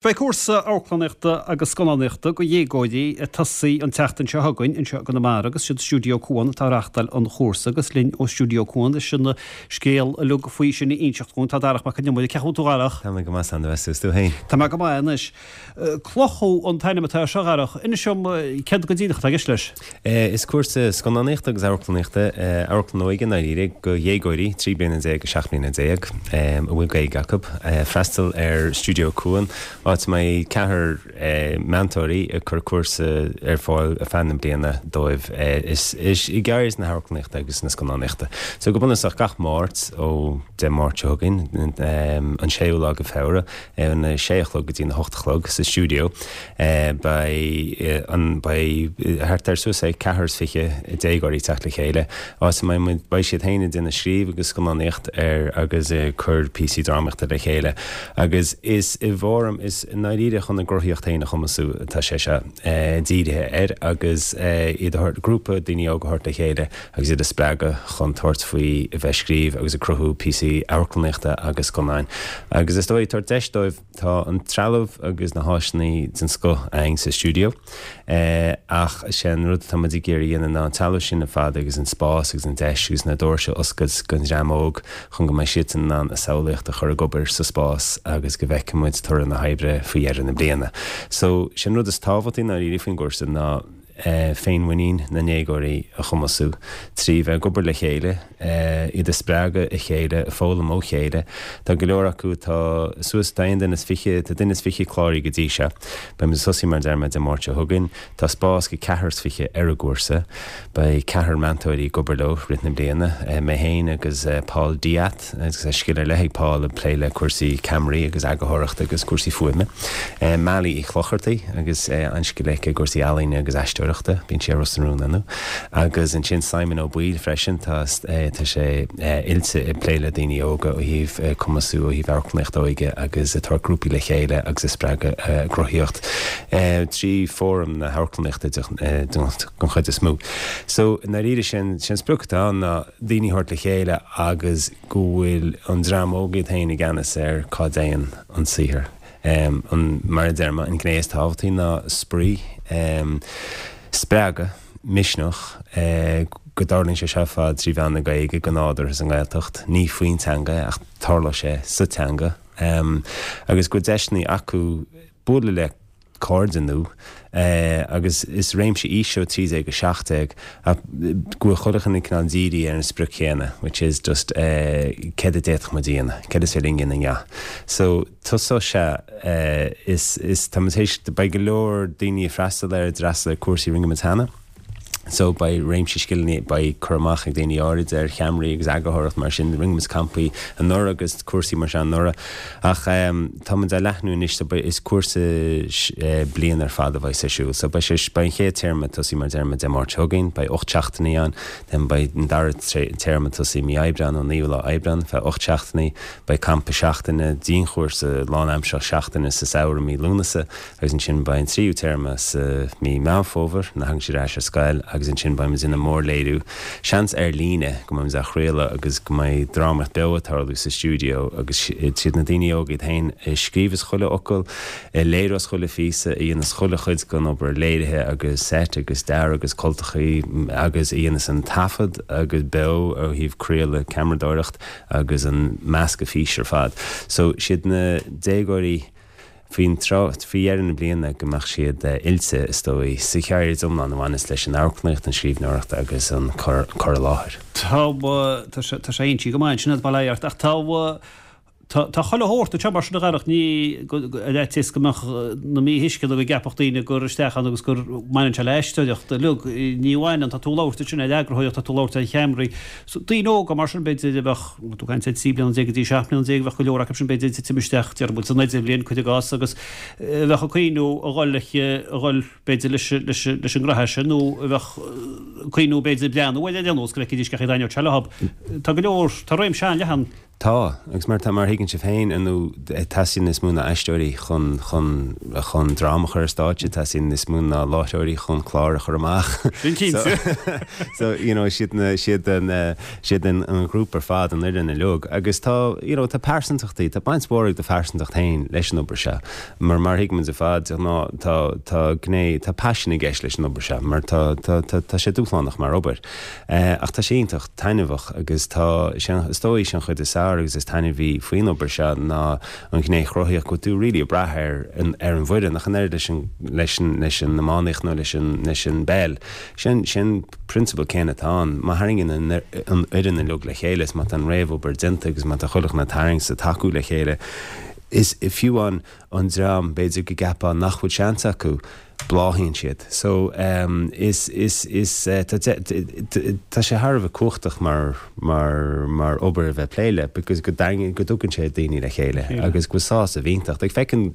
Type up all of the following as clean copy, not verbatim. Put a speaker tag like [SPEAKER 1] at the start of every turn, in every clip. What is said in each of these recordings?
[SPEAKER 1] Beidh cúrsa amharclannaíochta agus scannánaíochta do dhéagóirí ag tosaí an tseachtain seo chugainn anseo i gConamara agus siad Stiúideo Cuan atá ag reáchtáil an chúrsa agus linn ó Stiúideo Cuan leis an scéal uilig faoi sin a inseacht dhúinn tá Darach Mac Con Iomaire. Cén chaoi a bhfuil tú a Dharach?
[SPEAKER 2] Tá mé go maith a Aindrias is tú féin?
[SPEAKER 1] Tá mé go maith anois. Cloch an t-ainm atá air seo a Dharach. Inis dom céard go díreach atá i gceist leis?
[SPEAKER 2] Is cúrsa scannánaíochta agus amharclannaíochta, amharclann óige i ndáiríre, do dhéagóirí, 13 bliana go 17 mbliana, a bhfuil Gaeilge acu, freastal ar Stiúideo Cuan, áit a mbeidh ceathrar meantóirí ag cur cúrsa ar fáil ar feadh na bliana dóibh is i gceird na hamharclannaíochta agus na scannánaíochta. So go bunúsach gach Máirt ó Dé Máirt seo chugainn, an séú lá de Feabhra, óna sé a chlog go dtí na hocht a chlog sa stiúideo. Beidh an, beidh thart ar suas le ceathrar is fiche déagóirí ag teacht le chéile, áit a mbeidh muid, beidh siad féin ag déanamh scríobh agus scannánaíocht ar agus ag cur píosaí drámaíochta le chéile. Agus is i bhfóram, is i ndáiríre chun a gcruthaíocht féin a chumasú atá sé seo dírithe air agus iad a thabhairt, grúpa daoine óga a thabhairt le chéile agus iad a spreagadh chun tabhairt faoi a bheith ag scríobh agus ag cruthú píosaí amharclannaíochta agus scannáin. Agus is dóigh tabhairt deis dóibh, tá an trealamh agus na háiseanna den scoth againn sa stiúideo ach is é an rud atá muid ag iarraidh a dhéanamh ná an trealamh sin ar fad agus an spás agus an deis agus na doirse a oscailt don dream óg chun go mbeidh siadsan in ann a samhlaíocht a chur ag obair sa spás agus go bhfeicfidh muid toradh na hoibre faoi dheireadh na bliana. So, sé an rud is tábhachtaí i ndáiríre faoin gcúrsa ná, féinmhuinín na ndéagóirí a chumasú trí bheith ag obair le chéile, iad a spreagadh a chéile, ag foghlaim ó chéile. Tá go leor acu atá suas, tá aon duine is fiche, tá duine is fiche cláraithe go dtí seo. Beidh muid ag tosaí mar a deir mé Dé Máirt seo chugainn. Tá spás go ceathrar is fiche ar an gcúrsa. Beidh ceathrar meantóirí ag obair leo rith na bliana, mé féin agus Paul Diath. Agus tá scil ar leith ag Paul ag plé le cúrsaí ceamaraí agus eagarthóireachta agus cúrsaí fuaime. Mali Uí Chlochartaigh agus an-scil aici i gcúrsaí ealaíne agus aisteoireachta, bíonn sí ar Ros na Rún inniu. Agus ansin Simon Ó Baoill freisin, tá tá sé oilte ag plé le daoine óga ó thaobh cumasú ó thaobh amharclannaíocht óige agus ag tabhairt grúpaí le chéile agus ag spreagadh a gcruthaíocht trí fóram na hamharclannaíochta den chuid is mó. So i ndáiríre sé an sprioc atá ann ná daoine a thabhairt le chéile agus go bhfuil an dream óg iad féin i gceannas ar cá dtéann an saothar. An, mar a deir mé, an ghné is tábhachtaí ná spraoi, spreagadh, misneach, go dtarlaíonn sé seo ar fad trí mheán na Gaeilge, go nádúrtha sa nGaeltacht, ní faoin teanga é ach tarlóidh sé sa teanga, agus go bhfuil deiseanna acu bualadh le cairde nua agus is réimse aoise ó 13 go 17 ach go bhfuil chuile dhuine cineál dírithe ar an sprioc chéanna which is just céard a d'fhéadfadh muid a dhéanamh, céard is féidir linn a dhéanamh inniu. So tosóidh sé is is tá muid théis beidh go leor daoine ag freastal air, d'fhreastal ar cúrsaí a rinne muid cheana. So beidh réimse scileanna, beidh cur amach ag daoine áirid ar cheamaraí agus eagarthóireacht mar sin, rinne muid campaí anuraidh agus cúrsaí mar seo anuraidh ach tá muid á leathnú anois so beidh, is cúrsa bliain ar fad a bheidh ar siúl. So beidh sé, beidh an chéad téarma ag tosaí mar a deir mé Dé Máirt seo chugainn, beidh 8 seachtainí ann, then beidh an dara téarma ag tosaí mí Aibreán, ón naoú lá Aibreán, feadh 8 seachtainí, beidh campa seachtaine, dianchúrsa lánaimseartha seachtaine sa samhradh mí Lúnasa, Agus ansin beidh an tríú téarma sa mí Meán Fómhair, nuair a thagann siad ar ais ar scoil, agus ansin beidh muid ag déanamh mórléiriú, seans ar líne, go mbeidh muid á chraoladh agus go mbeidh drámaíocht beo ag tarlú sa stiúideo agus siad na daoine óga iad féin a scríobhas chuile fhocal, a léireos chuile phíosa, a dhéanas chuile chuid den obair léirithe agus seit agus dearadh agus cultachaí agus a dhéanas an taifead agus beo ó thaobh craoladh, ceamaradóireacht agus an meascadh físe ar fad. So siad na déagóirí. Faoin tráth, faoi dheireadh na bliana, go mbeadh siad oilte, is dóigh, sa cheird iomlán a bhaineas leis an amharclannaíocht, an scríbhneoireacht agus an cur i láthair.
[SPEAKER 1] Tá, tá sé, tá sé inste go maith ansin agat, bail ó Dhia ort, ach tá, tá, tá chuile shórt anseo mar sin a Dharach, ní, go, go, ar fhaitíos go mbeadh na míthuisceana go gceapfadh daoine gur isteach ann agus gur mbaineann sé le aisteoireacht uilig, ní bhaineann, tá tú ag labhairt ansin ar eagarthóireacht, tá tú ag labhairt ar cheamaraí, So, daoine óga mar sin, b'fhéidir, a bheadh, tú ag caint ar 13 bliana go dtí 17 mbliana, bheadh go leor acu sin, b'fhéidir, ag titim isteach, déarfaidh muid, san idirbhliain, cuir i gcás, agus a bheadh ag cuimhniú a dhul, a dhul, b'fhéidir, leis, leis, leis an ngraithe sin, nó a bheadh ag cuimhniú, b'fhéidir, breathnú air ar aon nós, go bhfeicfidís cén chaoi a dtaitneodh sé leo. Tá go leor, tá réimse an-leathan.
[SPEAKER 2] Tá, agus mar tá, mar a thuigeann sibh féin, ar ndóigh, teastaíonn níos mó ná aisteoirí chun, chun, chun dráma a chur ar stáitse, teastaíonn níos mó ná láithreoirí chun clár a chur amach.
[SPEAKER 1] Sin cinnte.
[SPEAKER 2] So, you know, siad na, siad an, siad an, an ghrúpa ar fad, an fhoireann uilig. Agus tá, you know, tá pearsantachtaí, tá baint mhór ag do phearsantacht féin leis an obair seo. Mar, mar a thuigimid ar fad, de ghnáth, tá, tá gné, tá paisean i gceist leis an obair seo, mar tá, tá, tá, tá sé dúshlánach mar obair. Ach tá sé iontach taitneamhach agus tá sé, is dóigh, sé an chuid is fearr agus is taitneamhaí faoin obair seo ná an ghné chruthaíoch go bhfuil tú really ag brath ar an ar an bhfoireann ach an oiread leis an leis an leis an iománaíocht nó leis an leis an bpeil. Sin sin prionsabal céanna atá ann. Má tharraingíonn an an fhoireann uilig le chéile is má tá an réamhobair déanta agus má tá chuile dhuine ag tarraingt is ag tacú le chéile is fiú an an dream b'fhéidir go gceapfá nach bhfuil seans acu, bláthaíonn siad. So, is, is, is, tá, tá sé thar a bheith cumhachtach mar, mar, mar obair a bheith ag plé le because go dtarraingíonn, go dtugann sé daoine le chéile agus go bhfuil sásamh iontach. Like feiceann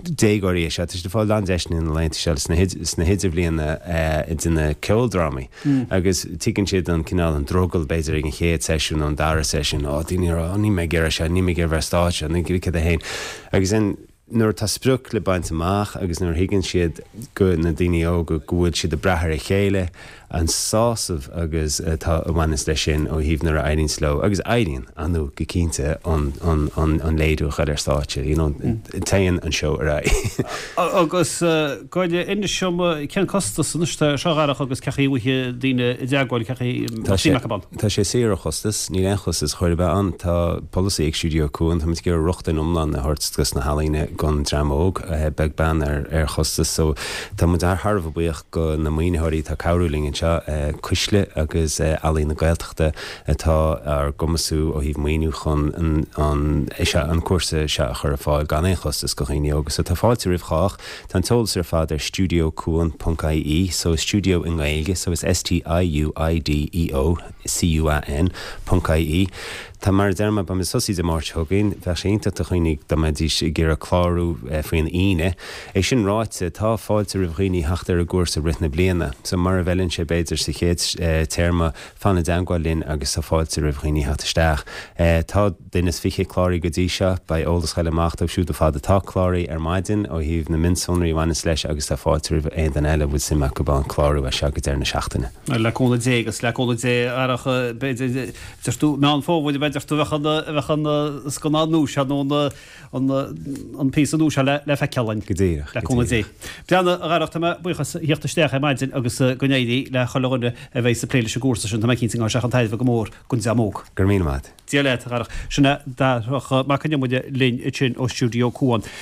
[SPEAKER 2] déagóirí é seo, tá siad ag fáil an-deiseanna na laethanta seo sna, sna hidirbhliana ag déanamh ceoldrámaí agus tuigeann siad an cineál, an drogall b'fhéidir ag an chéad seisiún nó an dara seisiún, oh daoine ag rá, oh níl mé ag iarraidh seo, níl mé ag iarraidh bheith ar stáitse, níl cad é féin. Agus then, nuair atá sprioc le baint amach agus nuair a thuigeann siad go, na daoine óga, go bhfuil siad ag brath ar a chéile, an sásamh agus atá a bhaineas leis sin ó thaobh nuair a éiríonns leo, agus éiríonn, ar ndóigh, go cinnte, an, an, an, an léiriú a chur ar stáitse, you know, téann an seó ar aghaidh.
[SPEAKER 1] Agus gabh i leith, inis dom, cén costas anois atá air seo, a Dharach, agus cén chaoi a bhfaighidh daoine i dteagmháil, cén chaoi a mbeadh suim acu ann?
[SPEAKER 2] Tá sé saor ó chostas, níl aon chostas chor ar bith ann. Tá polasaí ag Stiúideo Cuan, táimid ag iarraidh rochtain iomlán a thabhairt dos na healaíona don dream óg, beag beann ar chostas. So tá muid thar a bheith buíoch go na maoinitheoirí atá ag cabhrú linn anseo, Cuisle agus Ealaín na Gaeltachta atá ár gcumasú ó thaobh maoiniú chun an an cúrsa seo a chur ar fáil gan aon chostas go dhaoine óga. So tá fáilte roimh chách. Tá an t-eolas ar fad ar stiúideocuan ponc ie, so stiúideo i nGaeilge, so is S-T-I-U-I-D-E-O C-U-A-N ponc ie. Tá, mar a deir mé, beimid ag tosú Dé Máirt seo chugainn. Bheadh sé iontach do dhaoine dá mbeidís ag iarraidh clárú faoin Aoine. É sin ráite, tá fáilte roimh dhaoine theacht ar an gcúrsa i rith na bliana. So mura bhfeileann sé b'fhéidir sa chéad téarma, fan i dteangmháil linn agus tá fáilte roimh dhaoine theacht isteach. Tá. Duine is 20 cláraithe go dtí seo. Beidh eolas ag goil amach dóibh siúd ar fad atá cláraithe ar maidin ó thaobh na mionsonraí a bhaineas leis agus tá fáilte roimh aon duine eile a bhfuil suim acu ann clárú as seo go deireadh na seachtaine.
[SPEAKER 1] Le cúnamh Dé agus le cúnamh Dé a Dharach, b'fhéidir, deir tú, Meán Fómhair, b'fhéidir tú, bheadh an, bheadh an scannán nua seo nó an, an, an píosa nua seo le, le feiceáil againn.
[SPEAKER 2] Go díreach,
[SPEAKER 1] Le cúnamh Dé. Breathnaigh, a Dharach, tá mé buíoch as theacht isteach ar maidin agus go n-éirí le chuile dhuine a bheidh ag plé leis an gcúrsa sin. Tá mé cinnte go mbeidh sé chun tairbhe go mór don dream óg.
[SPEAKER 2] Go raibh míle maith.
[SPEAKER 1] Dia leat, a Dharach. Sin é Darach Mac Con Iomaire linn ansin ó Stiúideo Cuan.